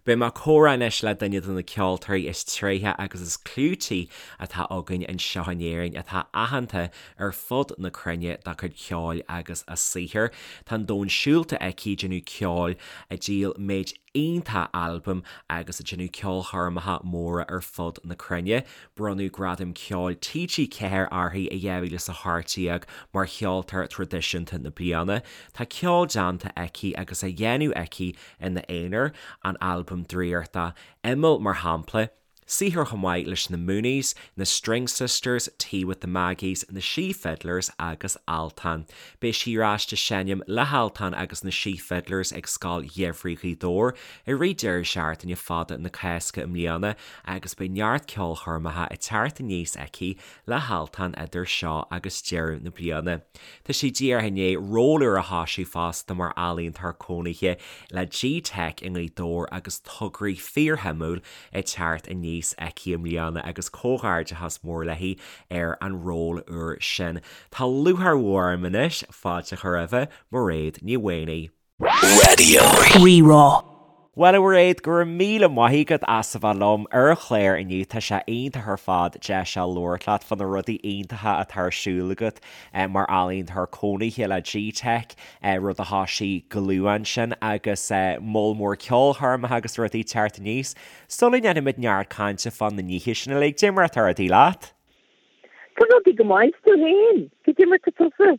Beidh mé ag comhrá anois le duine de na ceoltóirí is tréithe agus is clúití atá againn anseo in Éirinn atá aitheanta ar fud na cruinne dá cuid ceoil agus a saothar. Tá an domhan siúlta aici ag déanamh ceoil, ag díol méid iontach albam agus ag déanamh ceolchoirmeacha móra ar fud na cruinne. Bronnadh Gradam Ceoil TG4 uirthi i 2018 mar Cheoltóir Traidisiúnta na Bliana. Tá ceol déanta aici agus á dhéanamh aici ina aonar, an albam draíochta Imeall mar shampla, saothar chomh maith leis na Mooneys, na String Sisters, Tea with the Maggies, na Sí Fiddlers agus Altan. Beidh sí ar ais ag seinm le hAltan agus na Sí Fiddlers ag Scoil Gheimhridh Ghaoth Dobhair i rith deireadh seachtaine fada na Cásca i mbliana agus beidh neart ceolchoirmeacha ag teacht aníos aici le hAltan idir seo agus deireadh na bliana. Tá sí díreach i ndiaidh ról úr a thoisiú fosta mar ealaíontóir cónaithe le G-Teic i nGaoth Dobhair agus tograí fíorshuimiúil ag teacht aníos aici i mbliana agus comhghairdeachas mór léi ar an ról úr sin. Tá lúcháir mhór orm anois fáilte a chur roimhe, Mairéad Ní Mhaonaigh. Raidió Rí-Rá. Bhuel a Mhairéad, go raibh míle maith agat as a bheith liom ar an chlár inniu. Tá sé iontach ar fad deis a labhairt leat fá na rudaí iontacha atá ar siúl agat mar ealaíontóir cónaithe le G-Teic, rud a thoisigh go luath ansin agus moll mór ceolchoirmeacha agus rudaí ag teacht aníos. Sula ndéanfaimid neart cainte fá na nithe sin uilig, cad é mar atá rudaí leat? Tá rudaí go maith, 's tú fhéin? Cad é mar tá tusa?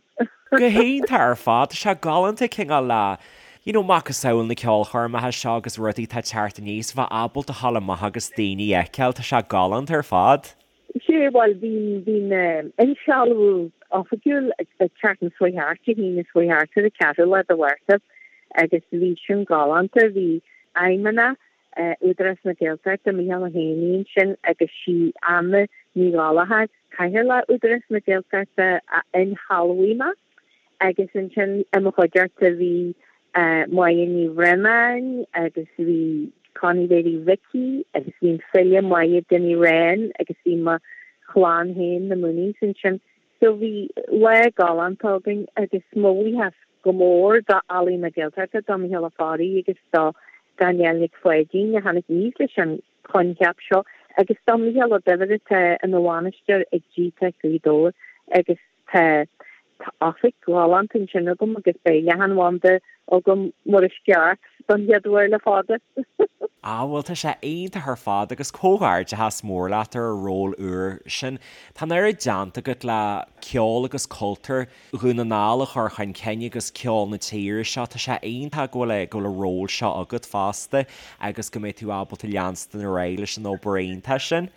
Go hiontach ar fad, tá sé galánta cineál le you know macasamhail na ceolchoirmeacha seo agus rudaí atá ag teacht aníos, bheith ábalta a ghabháil amach agus daoine a fheiceáil, tá sé galánta ar fad. Sea, bhuel, bhí, bhí an insealbhú oifigiúil ag teacht na Swaetheart, Dé hAoine Swaetheart ar an ceathrú lá de Mhárta agus bhí sin galánta, bhí Feidhmeannach Údarás na Gaeltachta, Micheál Ó hÉanaí ansin agus sí Anna Ní Ghallchóir, Cathaoirleach Údarás na Gaeltachta a insealbhaigh mé agus ansin i mo chuideachta bhí Máire Ní Bhraonáin agus bhí Connie Mhéirí Mhicí agus bhí an file Máire Dinny Wren agus bhí mo chlann féin, na Mooneys ansin. So bhí lá galánta againn agus mo bhuíochas go mór do Ealaín na Gaeltachta, do Mhicheál Ó Fearraigh agus do Danielle Nic Pháidín a tháinig aníos leis an choincheap seo agus do Mhicheál Ó Duibhir atá ina bhainisteoir ag G-Teic Gaoth Dobhair agus tá oifig ghalánta ansin agam agus beidh leathanbhanda agam mar is ceart don chéad uair le fada. Ah bhuel tá sé iontach ar fad agus comhghairdeachas mór leat ar an ról úr sin. Tá an oiread déanta agat le ceol agus cultúr Dhún na nGall a chur chun cinn agus ceol na tíre seo. Tá sé iontach go bhfuil go bhfuil an ról seo agat fosta agus go mbeidh tú ábalta leanstan ar aghaidh leis an obair iontach sin.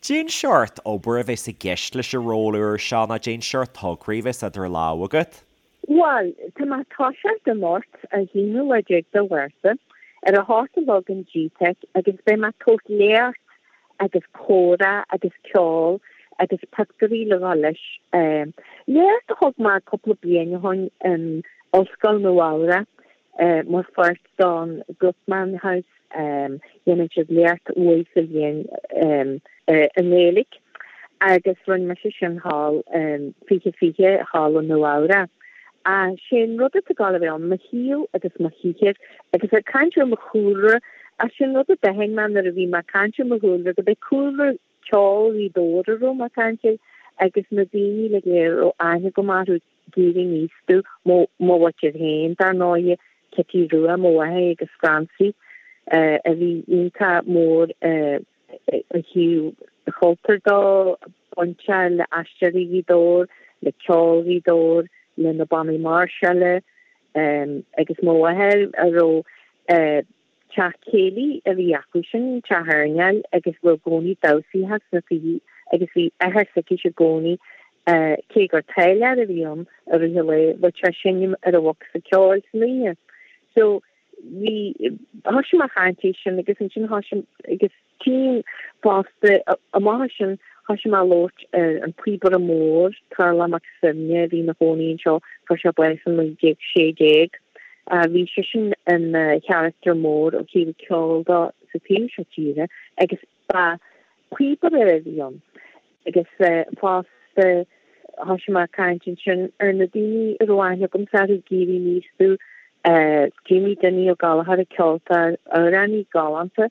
Cén seort obair a bheas i gceist leis an ról úr seo nó cén seort tograí a bheas idir lámha agat? Bhuel, tá mé ag toiseacht anocht, an t-aonú lá déag de Mhárta, ar a hocht a chlog in G-Teic agus beidh mé ag tabhairt léacht agus comhrá agus ceol agus pictiúirí le dhul leis. Léacht a thug mé cúpla bliain ó shoin in Ollscoil Nua Eabhrac mar pháirt don Guttmann House. Dhéanann siad léacht uair sa bhliain i nGaeilge agus rinne mise sin thall in 2020 thall i Nua Eabhrac. Sé an rud atá ag gabháil a bheith ann, mo shaol agus mo shaothar agus ag caint ar mo chúlra, sé an rud a d'aithin mé nuair a bhí mé ag caint ar mo chúlra go b'é cúlra ceoil Ghaoth Dobhair a raibh mé ag caint air agus na daoine uilig a raibh aithne agam orthu ag éirí aníos domh, mo mhuintir féin, dar ndóighe, Cití Rua, mo mháthair agus Francie, a bhí iontach mór ó thaobh chultúir de, bainteach le Aisteoirí Ghaoth Dobhair, le ceol Ghaoth Dobhair, le na bannaí máirseála, agus mo mháthair a raibh Teach céilí a bhí acu sin, teach airneáil, agus bhí i gcónaí damhsaí sna tithe agus bhí athair s'aici i gcónaí, cé gur táilliúir a bhí ann i rith an lae, bheadh sé ag seinm ar an bhocsa ceoil san oíche. So, bhí, thoisigh mé ag caint air sin agus ansin thoisigh, agus tchím fosta, amach as sin, thoisigh mé ag labhairt ar an Píobaire Mór, Tarlach Mac Suibhne, a bhí ina chónaí anseo, fuair sé bás in 1916. Bhí seisean ina charachtar mór ó thaobh ceoil de sa taobh seo tíre agus ba phíobaire a bhí ann agus fosta thoisigh mé ag caint ansin ar na daoine a raibh aithne agamsa orthu ag éirí aníos domh. Jamie Dinny Ó Gallchóir, ceoltóir, amhránaí galánta,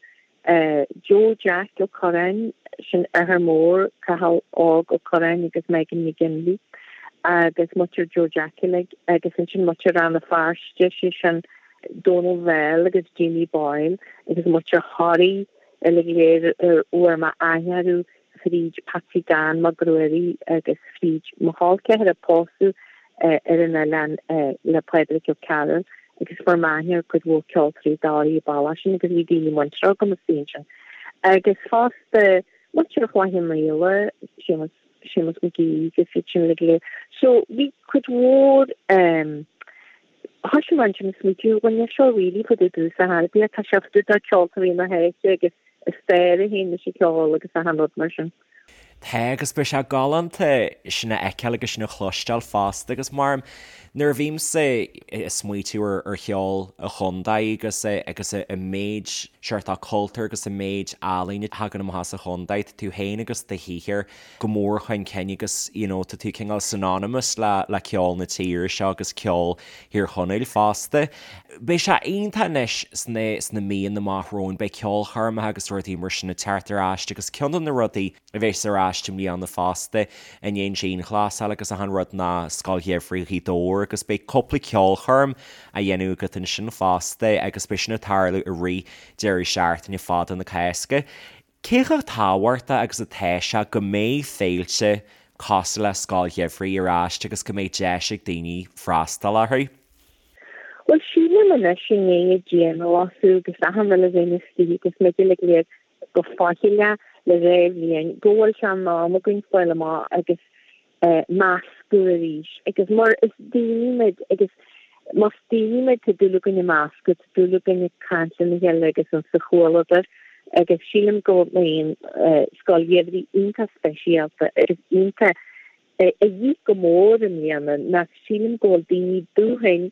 Joe Jack Ó Curráin, sin athair mór Cathal Óg Ó Curráin agus Megan McGinley, agus muintir Joe Jack uilig, agus ansin muintir Rann na Feirste, sé sin Donal Bell agus Jamie Boyle agus muintir Thoraí uilig go léir a bhfuair mé aithne orthu fríd Patsy Dan Mac Ruairí agus fríd mo chol ceathar a pósadh ar an oileán le Pádraig Ó Cearúil agus fuair mé aithne ar cuid mhór ceoltóirí Dhoraí an bealach sin agus bhí daoine muinteartha agam istigh ansin. Agus fosta muintir Chloich Cheann Fhaola, Séamus, Séamus Mac Aoidh agus iad sin uilig go léir. So bhí cuid mhór thoisigh mé ansin ag smaoitiú, bhuel níl seo really fá dtaobh domhsa ar bith, tá sé fá dtaobh de ceoltóirí na háite agus a stair féin leis an cheol agus achan rud mar sin. Tá, agus beidh sé galánta sin a fheiceáil agus sin a chloisteáil fosta agus mar nuair a bhímse ag smaoitiú ar cheol an chontae agus agus an méid seort cultúr agus an méid ealaíne a thagann amach as an chontae, tá tú féin agus do shaothar go mór chun cinn agus you know tá tú cineál synonymous le le ceol na tíre seo agus ceol Thír Chonaill fosta. Beidh sé iontach anois sna sna míonna amach romhainn, beidh ceolchoirmeacha agus rudaí mar sin ag teacht ar ais agus ceann de na rudaí a bheas ar ais i mbliana fosta i ndiaidh an dianghlasáil agus achan rud ná Scoil Gheimhridh Ghaoth Dobhair agus beidh cúpla ceolchoirm á dhéanamh agat ansin fosta agus beidh sin ag tarlú i rith deireadh seachtaine fada na Cásca. Cé chomh tábhachtach agus atá sé go mbeidh féilte cosúil le Scoil Gheimhridh ar ais agus go mbeidh deis ag daoine freastal orthu? Bhuel, sílim anois i ndiaidh an dianghlasáil agus achan rud a bheith istigh agus muid uilig go léir go faichilleach le dhá bhliain go bhfuil sé in am againn fáil amach agus meascadh arís agus mar is daoine muid agus más daoine muid tá dúil againn ag meascadh, tá dúil againn ag caint lena chéile agus an sa chomhluadar agus sílim go mbíonn Scoil Gheimhridh iontach speisialta agus iontach a dhíth go mór i mbliana ná sílim go bhfuil daoine dúthain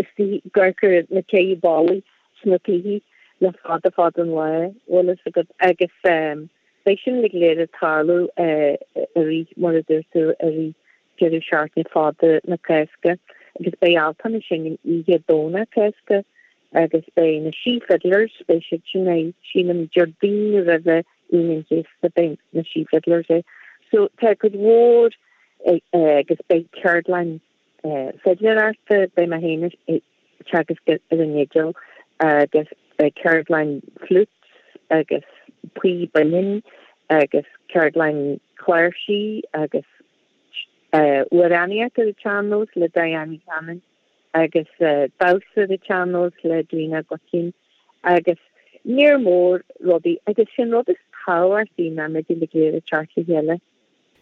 istigh ag amharc ar na céidhe ballaí sna tithe le fada fada an lá, bhfuil fhios agat agus Beidh sin uilig go léir ag tarlú i rith, mar a dúirt tú, i rith deireadh seachtaine fada na Cásca agus beidh Altan ag seinm oíche Domhnach Cásca agus beidh na Sí Fiddlers, beidh siad sin ag, sílim, Déardaoin roimhe Aoine an Chéasta, beidh na Sí Fiddlers ag. So tá cuid mhór agus beidh ceardlann fidléireachta, beidh mé féin ag teagasc ar an fhidil agus beidh ceardlann flutes agus píob binn agus ceardlann cláirsí agus amhránaíocht ar an tsean-nós le Diane Ní Chanainn agus damhsa ar an tsean-nós le Edwina Guckian agus léar mór rudaí agus sin rud is tábhachtaí ná muid uilig go léir ag teacht le chéile.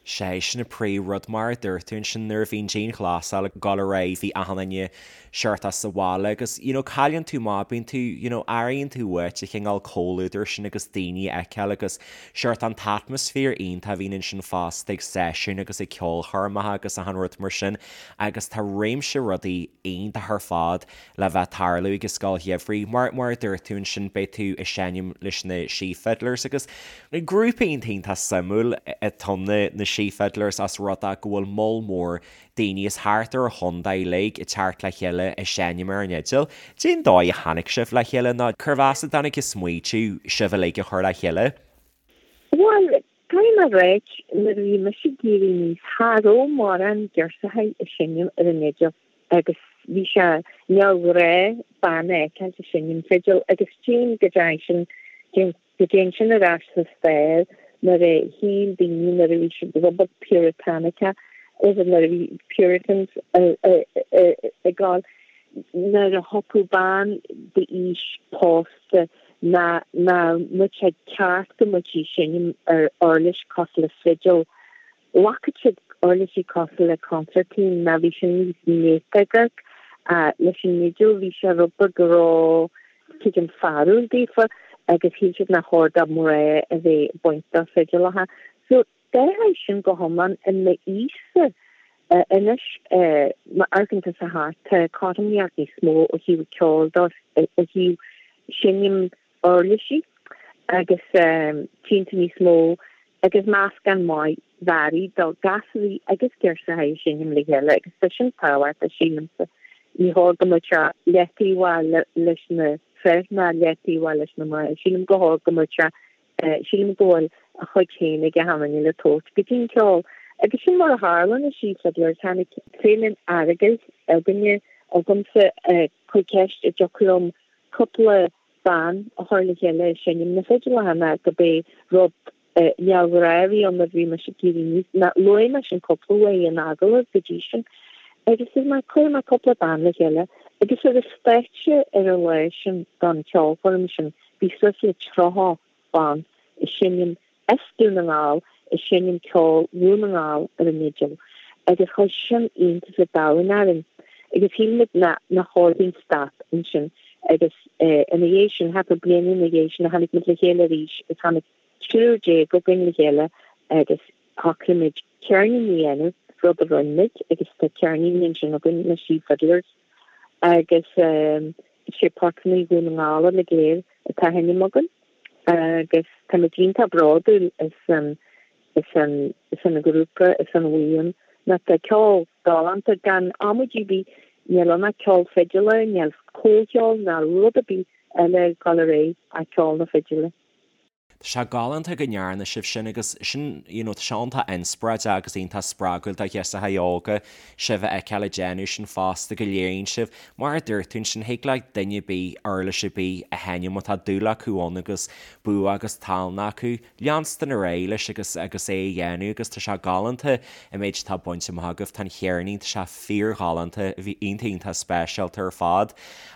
Sé sin an príomhrud mar a dúirt tú ansin nuair a bhí an dianghlasáil ag dul ar aghaidh bhí achan duine seort as sa bhaile agus you know cailleann tú amach bíonn tú you know airíonn tú uait an cineál comhluadar sin agus daoine a fheiceáil agus seort an t-atmaisféar iontach a bhíonn ansin fosta ag seisiúin agus ag ceolchoirmeacha agus achan rud mar sin agus tá réimse rudaí iontach ar fad le bheith ag tarlú ag an Scoil Gheimhridh. Mar, mar a dúirt tú ansin, beidh tú ag seinm leis na Sí Fiddlers agus grúpa iontach iontach suimiúil atá ann na Sí Fiddlers as rud é go bhfuil moll mór daoine as thart ar an chontae uilig ag teacht le chéile ag seinm ar an fhidil. Cén dóigh a tháinig sibh le chéile nó cérbh as a dtáinig an smaoitiú sibh uilig a chur le chéile? Bhuel, caithfidh mé a ráit, nuair a bhí mise ag éirí aníos, cha raibh mórán girseachaí ag seinm ar an fhidil agus bhí sé neamhghnách bean a fheiceáil ag seinm fidil agus tchím go dtéann sin, go dtéann sin ar ais sa stair nuair a shíl daoine nuair a bhí siad rud beag puritanic-ach, is nuair a bhí Puritans ag gabháil, nuair a thiocfadh bean d'aois pósta ná nach mbeadh sé ceart go mbeadh sí ag seinm ar uirlis cosúil le fidil. Ghlacfadh siad uirlisí cosúil le consairtín ná bhí sin níos néata amharc. Leis an fhidil bhí sé rud beag ró tuigim fearúil daofa agus shíl siad nach chóir do mná a bheith ag baint do fidileacha. So d'athraigh sin go hiomlán i m'aois-sa anois má amharcann tusa thart tá cothromaíocht níos mó ó thaobh ceoil de ó thaobh seinm uirlisí agus tchíonn tú níos mó agus meascán maith mearaí de gasúraí agus girseachaí ag seinm le chéile agus tá sin tábhachtach sílimse. Ní chóir go mbeadh sé leataobhach leis na fir ná leataobhach leis na mná. Sílim go chóir go mbeadh sé, sílim go bhfuil a chuid féin ag achan duine le tabhairt go dtí an ceol. Agus sin mar a tharla na Sí Fiddlers, tháinig Féile an Earagail againne, agamsa, chuir ceist an dtiocfadh liom cúpla bean a chur le chéile ag seinm na fidileacha ná go b'é rud neamhghnách a bhí ann nuair a bhí mise ag éirí aníos, ná luaigh mise an cúpla uair in agallamh go dtí sin. Agus dúirt mé, cuirfidh mé cúpla bean le chéile. Agus ar an stáitse ar an lá sin don cheolchoirm sin bhí suas le 30 ban ag seinm as Dún na nGall ag seinm ceol Dhún na nGall ar an fhidil agus chuir sin iontas an domhain orainn agus shíl muid nach chóir dúinn stop ansin agus ina dhiaidh sin, thart ar bliain ina dhiaidh sin, tháinig muid le chéile arís agus tháinig 13 againn le chéile agus shocraigh muid ceirnín a dhéanamh, rud a rinne muid agus tá ceirnín ansin againn, na Sí Fiddlers agus sé portanna Dhún na nGall uilig go léir atá á sheinm againn. agus táimid iontach bródúil as an as an as an ghrúpa as an bhuíon nó tá ceol galánta gan amaidí ar bith níl ann ach ceol fidile níl comhcheol ná rud ar bith eile ag dul ar aghaidh ach ceol na fidile. Tá sé galánta go ndearna sibh sin agus sin you know tá sé iontach inspioráideach agus iontach spreagúil do ghirseacha óga sibh a fheiceáil ag déanamh sin fosta go léiríonn sibh Mar a dúirt tú ansin, thig le duine ar bith uirlis ar bith a sheinm má tá dúil acu ann agus bua agus tallann acu, leanstan ar aghaidh leis agus agus é a dhéanamh agus tá sé galánta an méid atá bainte amach agaibh. Tá an cheirnín, tá sé fíorghalánta, bhí iontach iontach speisialta ar fad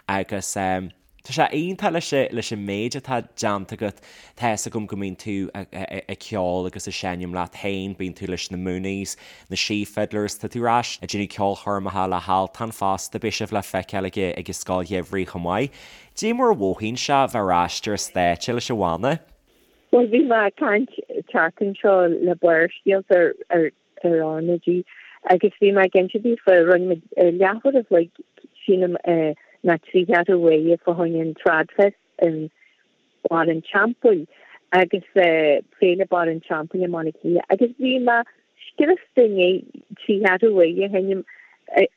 agus eh. Tá sé iontach leis leis an méid atá déanta agat. Tá fhios agam go mbíonn tú ag ceol agus ag seinm leat féin, bíonn tú leis na Mooneys, na Sí Fiddlers, tá tú ar ais ag déanamh ceolchoirmeacha le hAltan fosta, beidh sibh le feiceáil ag ag an Scoil Gheimhridh chomh maith. Cad é mar a mhothaíonn sé bheith ar ais ar an stáitse leis an bhanna? Bhuel, bhí mé ag caint an tseachtain seo le Barrscéalta ar ar ar RnaG agus bhí mé ag inse daofa, rinne muid leathuair a chloig sílim nó trí cheathrú uaire fá choinne an Tradfest in Barr an Teampaill agus Féile Barr an Teampaill i mBaile Átha Cliath agus bhí mé scriosta i ndiaidh trí cheathrú uaire a sheinm.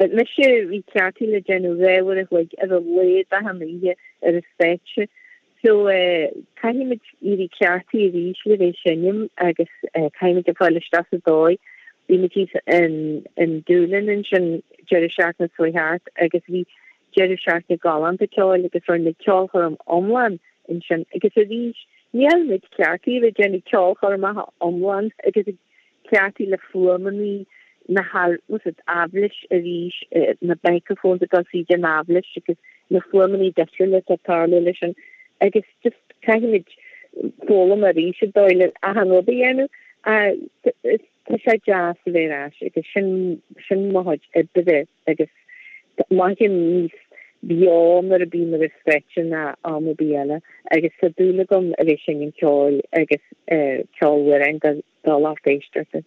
Mise bhí cleachtaithe le déanamh dhá uair a chloig ar a laghad achan oíche ar an stáitse So, caithfimid éirí cleachtaithe arís le bheith ag seinm agus caithfimid a fáil isteach sa dóigh. Bhí muid thíos in Doolin ansin deireadh seachtaine seo thart agus bhí deireadh seachtaine galánta ceoil agus rinne muid ceolchoirm iomlán ansin agus arís níl muid cleachtaithe le déanamh ceolchoirmeacha iomlán agus ag cleachtaithe le fuaimeanna na haibhléis arís, na microphones ag dul tríd an aibhléis agus na fuaimeanna difriúla atá ag tarlú leis sin agus just caithfimid foghlaim arís an dóigh le achan rud a dhéanamh. Tá sé deas a bheith ar ais agus sin sin mo chuid oibre agus mothaím níos beo nuair a bím ar an stáitse ná am ar bith eile agus tá dúil agam a bheith ag seinm ceoil agus ceol amhráin do lucht éisteachta.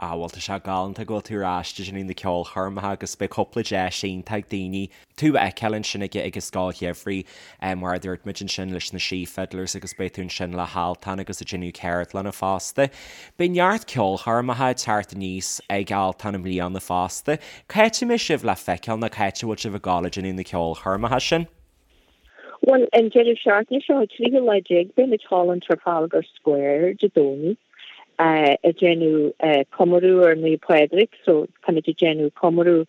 Ah bhuel tá sé galánta go bhfuil tú ar ais ag déanamh na ceolchoirmeacha agus beidh cúpla deis iontach ag daoine tú a fheiceáil ansin ag ag an Scoil Gheimhridh mar a dúirt muid ansin leis na Sí Fiddlers agus beidh tú ansin le hAltan agus ag déanamh ceardlanna fosta. Beidh neart ceolchoirmeacha ag teacht aníos ag Altan i mbliana fosta. Cá háit a mbeidh sibh le feiceáil nó cá háit a bhfuil sibh ag gabháil ag déanamh na ceolchoirmeacha sin? Bhuel, an deireadh seachtaine seo, an tríú lá déag, beidh muid thall in Trafalgar Square Dé Domhnaigh ag déanamh comóradh ar Naomh Pádraig, so táimid ag déanamh comóradh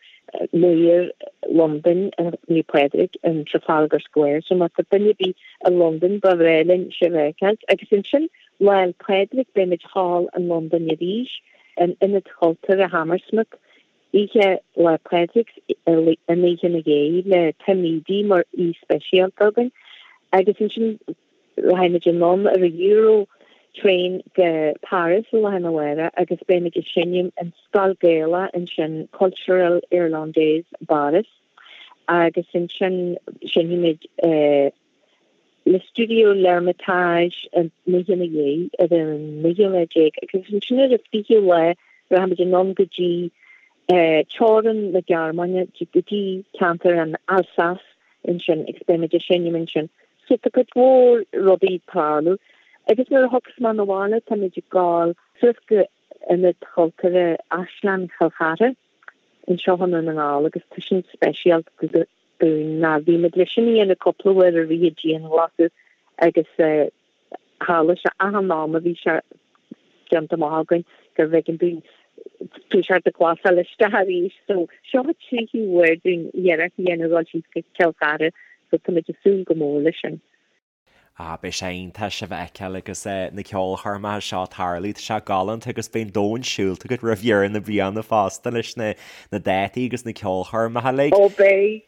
Maor Londain ar Naomh Pádraig in Trafalgar Square, so má tá duine ar bith i Londain ba bhreá linn sibh a fheiceáil. Agus ansin Lá 'le Pádraig beidh muid thall in Londain arís in Ionad Chultúrtha Hammersmith Oíche Lá Pádraig an oíche ina dhiaidh le Tim Edey mar aoi speisialta againn agus ansin rachaidh muid anonn ar an Euro train go Paris lá arna mhárach agus beidh muid ag seinm in Scoil Gaelach ansin Culturelle Irlandaise i bPáras agus ansin seinnfidh muid le Studio L'Ermitage an oíche ina dhiaidh ar an naoú lá déag agus ansin ar an fichiú lá rachaimid anonn go dtí teorainn na Gearmáine go dtí ceantar an Alsace ansin agus beimid ag seinm ansin. So tá cuid mhór rudaí ag tarlú agus nuair a thiocfas mé 'na bhaile táimid ag gabháil suas go Ionad Chultúrtha Áislann Chill Chartha. anseo i nDún na nGall agus tá sin speisialta dúinn ná bhí muid leis sin a dhéanamh cúpla uair i rith an dianghlasáil agus tharla sé achan am a bhí sé déanta amach againn gurbh éigean dúinn toiseacht ag glasáil isteach arís. So seo an tríú huair dúinn iarracht a dhéanamh dul síos go Cill Chartha so tá muid ag súil go mór leis sin. Ah, beidh sé iontach sibh a fheiceáil agus na ceolchoirmeacha seo ag tarlú. Tá sé galánta agus beidh an domhan siúlta agat roimh dheireadh na bliana fosta leis na dátaí agus na ceolchoirmeacha uilig. Ó beidh,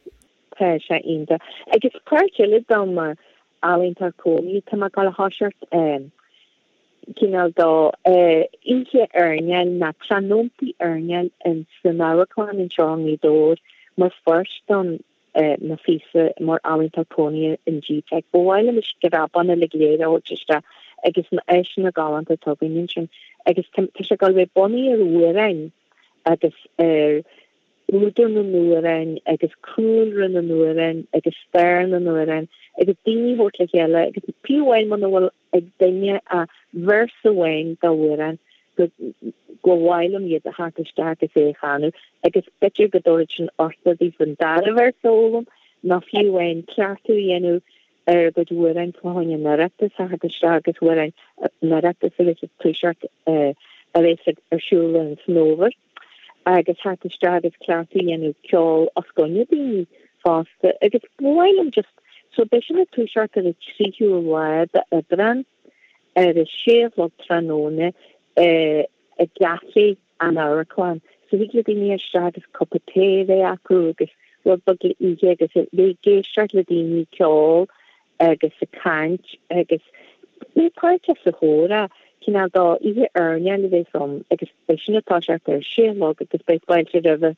tá sé iontach. Agus páirt eile de mo ealaíontóir cónaithe, tá mé ag dul a thoiseacht cineál de oíche airneáil nó tráthnóntaí airneáil in san amharclann anseo i nGaoth Dobhair mar pháirt den mo phíosa mar ealaíontóir cónaithe in GTeic. Ba mhaith liom na screabáin uilig go léir a thabhairt isteach agus na áiseanna galánta atá againn ansin. Agus tá sé ag dul a bheith bunaithe ar amhráin agus ar údar na n-amhrán agus cúlra na n-amhrán agus stair na n-amhrán agus daoine a thabhairt le chéile agus fiú amháin muna bhfuil ag duine ach véarsa amháin d'amhrán go gur mhaith liom iad a theacht isteach agus é a chanadh agus b'fhéidir go dtabharfaidh sin uchtach daofa an dara véarsa a fhoghlaim nó fiú amháin cleachtadh a dhéanamh ar a gcuid amhráin fá choinne an Oireachtais a theacht isteach agus amhráin an Oireachtais a bheas ag toiseacht a bheas ar siúl an san fhómhar agus theacht isteach agus cleachtadh a dhéanamh ceol os coinne daoine fosta agus ba mhaith liom just so beidh sin ag toiseacht ar an tríú lá d'Aibreán ar a sé a chlog tráthnóna i gcaifé an amharclann. So thig le daoine isteach agus cupa tae a bheith acu agus rud beag le ithe agus a bheith ag éisteacht le daoine ag ceol agus ag caint agus bheith páirteach sa chomhrá, cineál d'oíche airneáil a bheas ann agus beidh sin ag toiseacht ar a sé a chlog agus beidh fáilte roimhe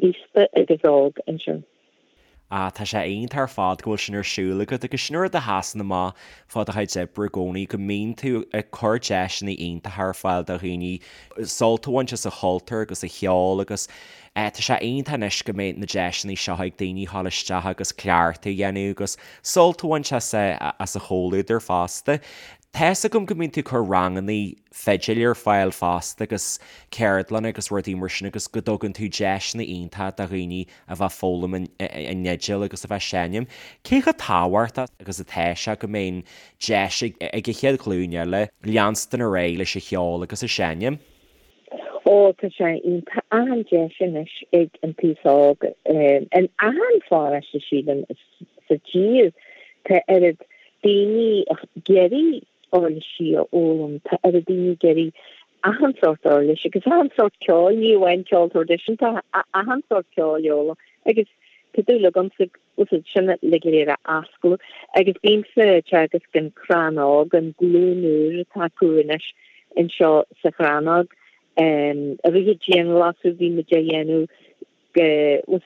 aosta agus óg ansin. Ah, tá sé iontach ar fad go bhfuil sin ar siúl agat agus sin rud a sheasann amach fá do chuid oibre i gcónaí, go mbíonn tú ag cur deiseanna iontacha ar fáil do dhaoine sult a bhaint as an chultúr agus an cheol agus eh tá sé iontach anois go mbeidh na deiseanna seo ag daoine a ghabháil isteach agus cleachtadh a dhéanamh agus sult a bhaint as as an chomhluadar fosta. Tá's agam go mbíonn tú ag cur ranganna fidil ar fáil fosta agus ceardlanna agus rudaí mar sin agus go dtugann tú deiseanna iontacha do dhaoine a bheith ag foghlaim an fhidil agus a bheith ag seinm. Cé chomh tábhachtach agus atá sé go mbeidh an deis ag an chéad ghlúin eile leanstan ar aghaidh leis an cheol agus an seinm? Ó, tá sé iontach. Achan deis anois ag an t-aos óg in achan pharóiste sílim sa tír. Tá oiread daoine ag iarraidh uirlisí a fhoghlaim, tá oiread daoine ag iarraidh achan sórt uirlis agus achan sórt ceoil, ní amháin ceol traidisiúnta, achan sórt ceoil a fhoghlaim agus tá dúil agamsa úsáid sin uilig go léir a osclú agus bímse ag teagasc an Chrannóg, an glúin úr atá acu anois anseo sa Chrannóg. I rith an dianghlasáil bhí muid á dhéanamh go,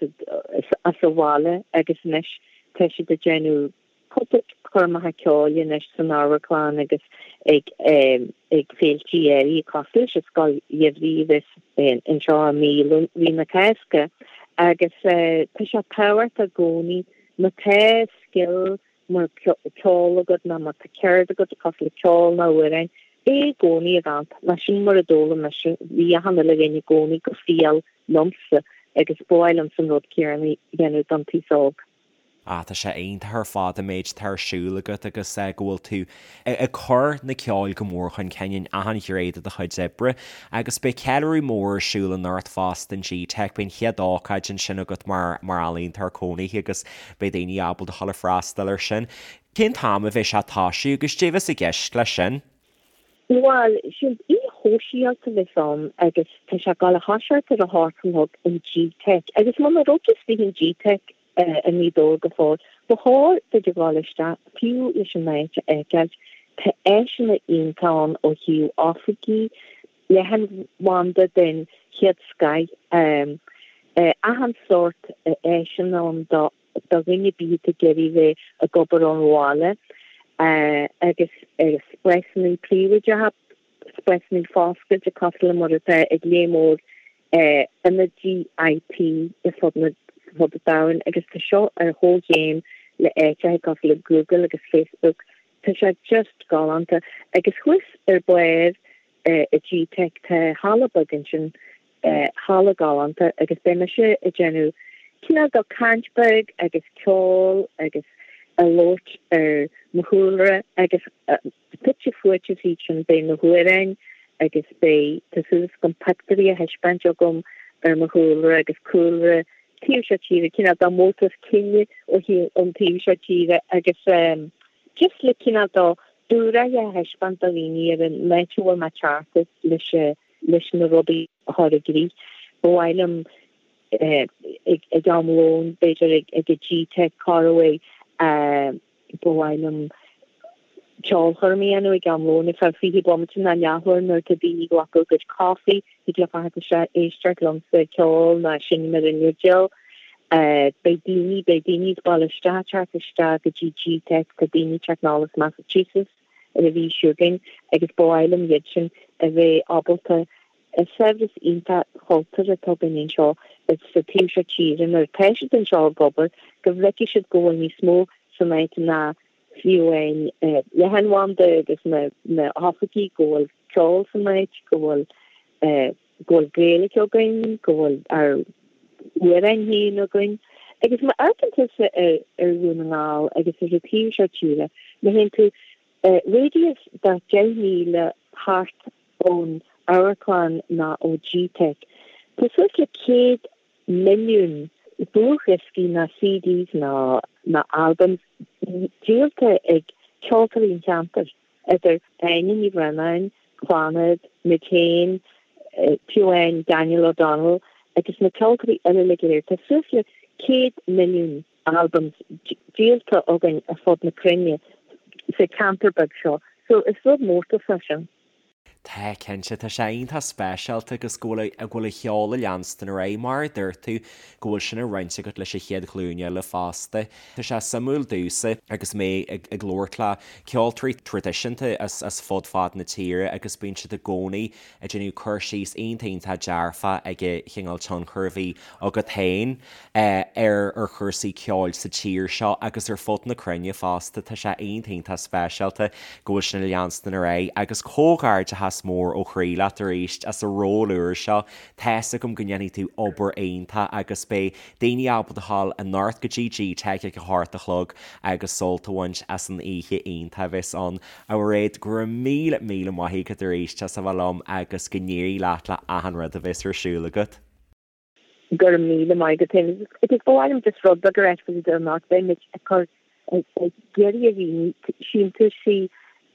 as an bhaile agus anois tá siad ag déanamh cúpla coirmeacha ceoil anois san amharclann agus ag ag féiltí áirithe cosúil leis an Scoil Gheimhridh a bheas anseo i mí mhí na Cásca agus tá sé tábhachtach i gcónaí má tá scil mar ceol agat nó má tá ceird agat cosúil le ceol nó amhráin, é i gcónaí a mhúineadh mar sin mar a d'fhoghlaim mise, bhí achan uile dhuine i gcónaí go fial liomsa agus ba mhaith liomsa an rud céanna a dhéanamh don t-aos óg. Ah, tá sé iontach ar fad an méid atá ar siúl agat agus go bhfuil tú ag cur na ceoil go mór chun cinn in achan ghné de do chuid oibre. Agus beidh ceiliúradh mór ar siúl anocht fosta in GTeic, beidh an chéad ócáid ansin agat mar mar ealaíontóir cónaithe agus beidh daoine ábalta dhul ag freastal air sin. Cén t-am a bheidh sé ag toisiú agus cad é a bheas i gceist leis sin? Bhuel, sin oíche shóisialta a bheas ann agus tá sé ag dul a thoiseacht ar a hocht a chlog in GTeic agus muna raibh tú istigh in GTeic, i nGaoth Dobhair go fóill. Ba chóir duit a dhul isteach, fiú leis an áit a fheiceáilt. Tá áiseanna iontacha ann ó thaobh oifigí, leathanbhanda den chéad scoith, achan sórt áiseanna ann do dhuine ar bith atá ag iarraidh bheith ag obair ón bhaile agus spásanna príobháideacha. spásanna foscailte cosúil le mar atá ag léar mór ionaidí IT ar fud an domhain agus tá seo ar chomhchéim le áiteacha cosúil le Google agus Facebook. Tá sé just galánta. Agus thuas ar barr i GTeic tá halla beag ansin. Halla galánta agus beidh mise ag déanamh cineál de caint beag agus ceol agus ag labhairt ar mo chúlra agus fite fuaite fríd sin beidh na hamhráin agus beidh, tá súil agam pictiúirí a thaispeáint agam ar mo chúlra agus cúlra taobh seo tíre, cineál de mórtas cine ó ón taobh seo tíre agus just le cineál de dúshraith a thaispeáint do dhaoine ar an áit a bhfuil mé ag teacht as leis leis na rudaí a chur i gcrích. Ba mhaith liom ag am lóin, b'fhéidir ag an GTeic Coruaidh, ba mhaith liom ceolchoirm a dhéanamh ag am lóin ar feadh 20 bomaite nó leathuair nuair atá daoine ag glacadh a gcuid coffee, thig leo theacht isteach éisteacht liomsa ag ceol nó seinm ar an fhidil. Beidh daoine, beidh daoine as baile isteach ag teacht isteach go dtí GTeic, tá daoine ag teacht anall as Massachusetts ar an mhí seo chugainn agus ba mhaith liom iad sin a bheith ábalta an saibhreas iontach cultúrtha atá againn anseo sa taobh seo tíre nuair atá siad anseo ag obair go bhfeicfidh siad go bhfuil níos mó san áit ná fiú amháin leathanbhanda agus na hoifigí, go bhfuil ceol san áit, go bhfuil go bhfuil Gaeilge againn, go bhfuil ár n-amhráin féin againn. Agus má amharcann tusa ar Dhún na nGall agus ar an taobh seo tíre, má théann tú radius de 10 míle thart ón amharclann ná ó GTeic, tá suas le 100 milliún dlúthdhioscaí ná CDs ná ná albums díolta ag ceoltóirí an cheantair, idir Áine Ní Bhraonáin, Clannad, muid féin, fiú amháin Daniel O'Donnell agus na ceoltóirí eile uilig go léir. Tá suas le 100 milliún albums díolta againn ar fud na cruinne sa cheantar beag seo so is rud mórtais é sin. Tá, cinnte. Tá sé iontach speisialta agus go bhfuil go bhfuil an cheol ag leanstan ar aghaidh, mar a dúirt tú, go bhfuil sin á roinnt agat leis an chéad ghlúin eile fosta. Tá sé suimiúil domhsa agus mé ag ag labhairt le ceoltóirí traidisiúnta as as fud fad na tíre agus bíonn siad i gcónaí ag déanamh cur síos iontach iontach dearfach ag an chineál tionchar a bhí agat féin ar ar chúrsaí ceoil sa tír seo agus ar fud na cruinne fosta. Tá sé iontach iontach speisialta go bhfuil sin ag leanstan ar aghaidh agus comhghairdeachas mór ó chroí leat arís as an ról úr seo. Tá's agam go ndéanfaidh tú obair iontach agus beidh daoine ábalta a ghabháil anocht go dtí GTeic ag a hocht a chlog agus sult a bhaint as an oíche iontach a bheas ann. A Mhairéad, go raibh míle míle maith agat arís as a bheith liom agus go n-éirí leat le achan rud a bheas ar siúl agat. Go raibh míle maith agat féin. Agus ba mhaith liom just rud beag a ráit faoi anocht. Beidh muid ag cur ag iarraidh ar dhaoine síntiúisí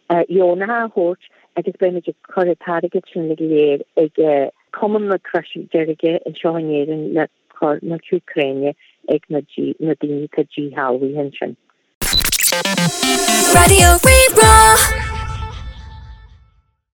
dheonacha a thabhairt agus beidh muid ag cur an t-airgead sin uilig go léir ag Cumann na Croise Deirge anseo in Éirinn le cur na hÚcráine ag na daoine atá díshealbhaithe ansin. Raidió Rí-Rá.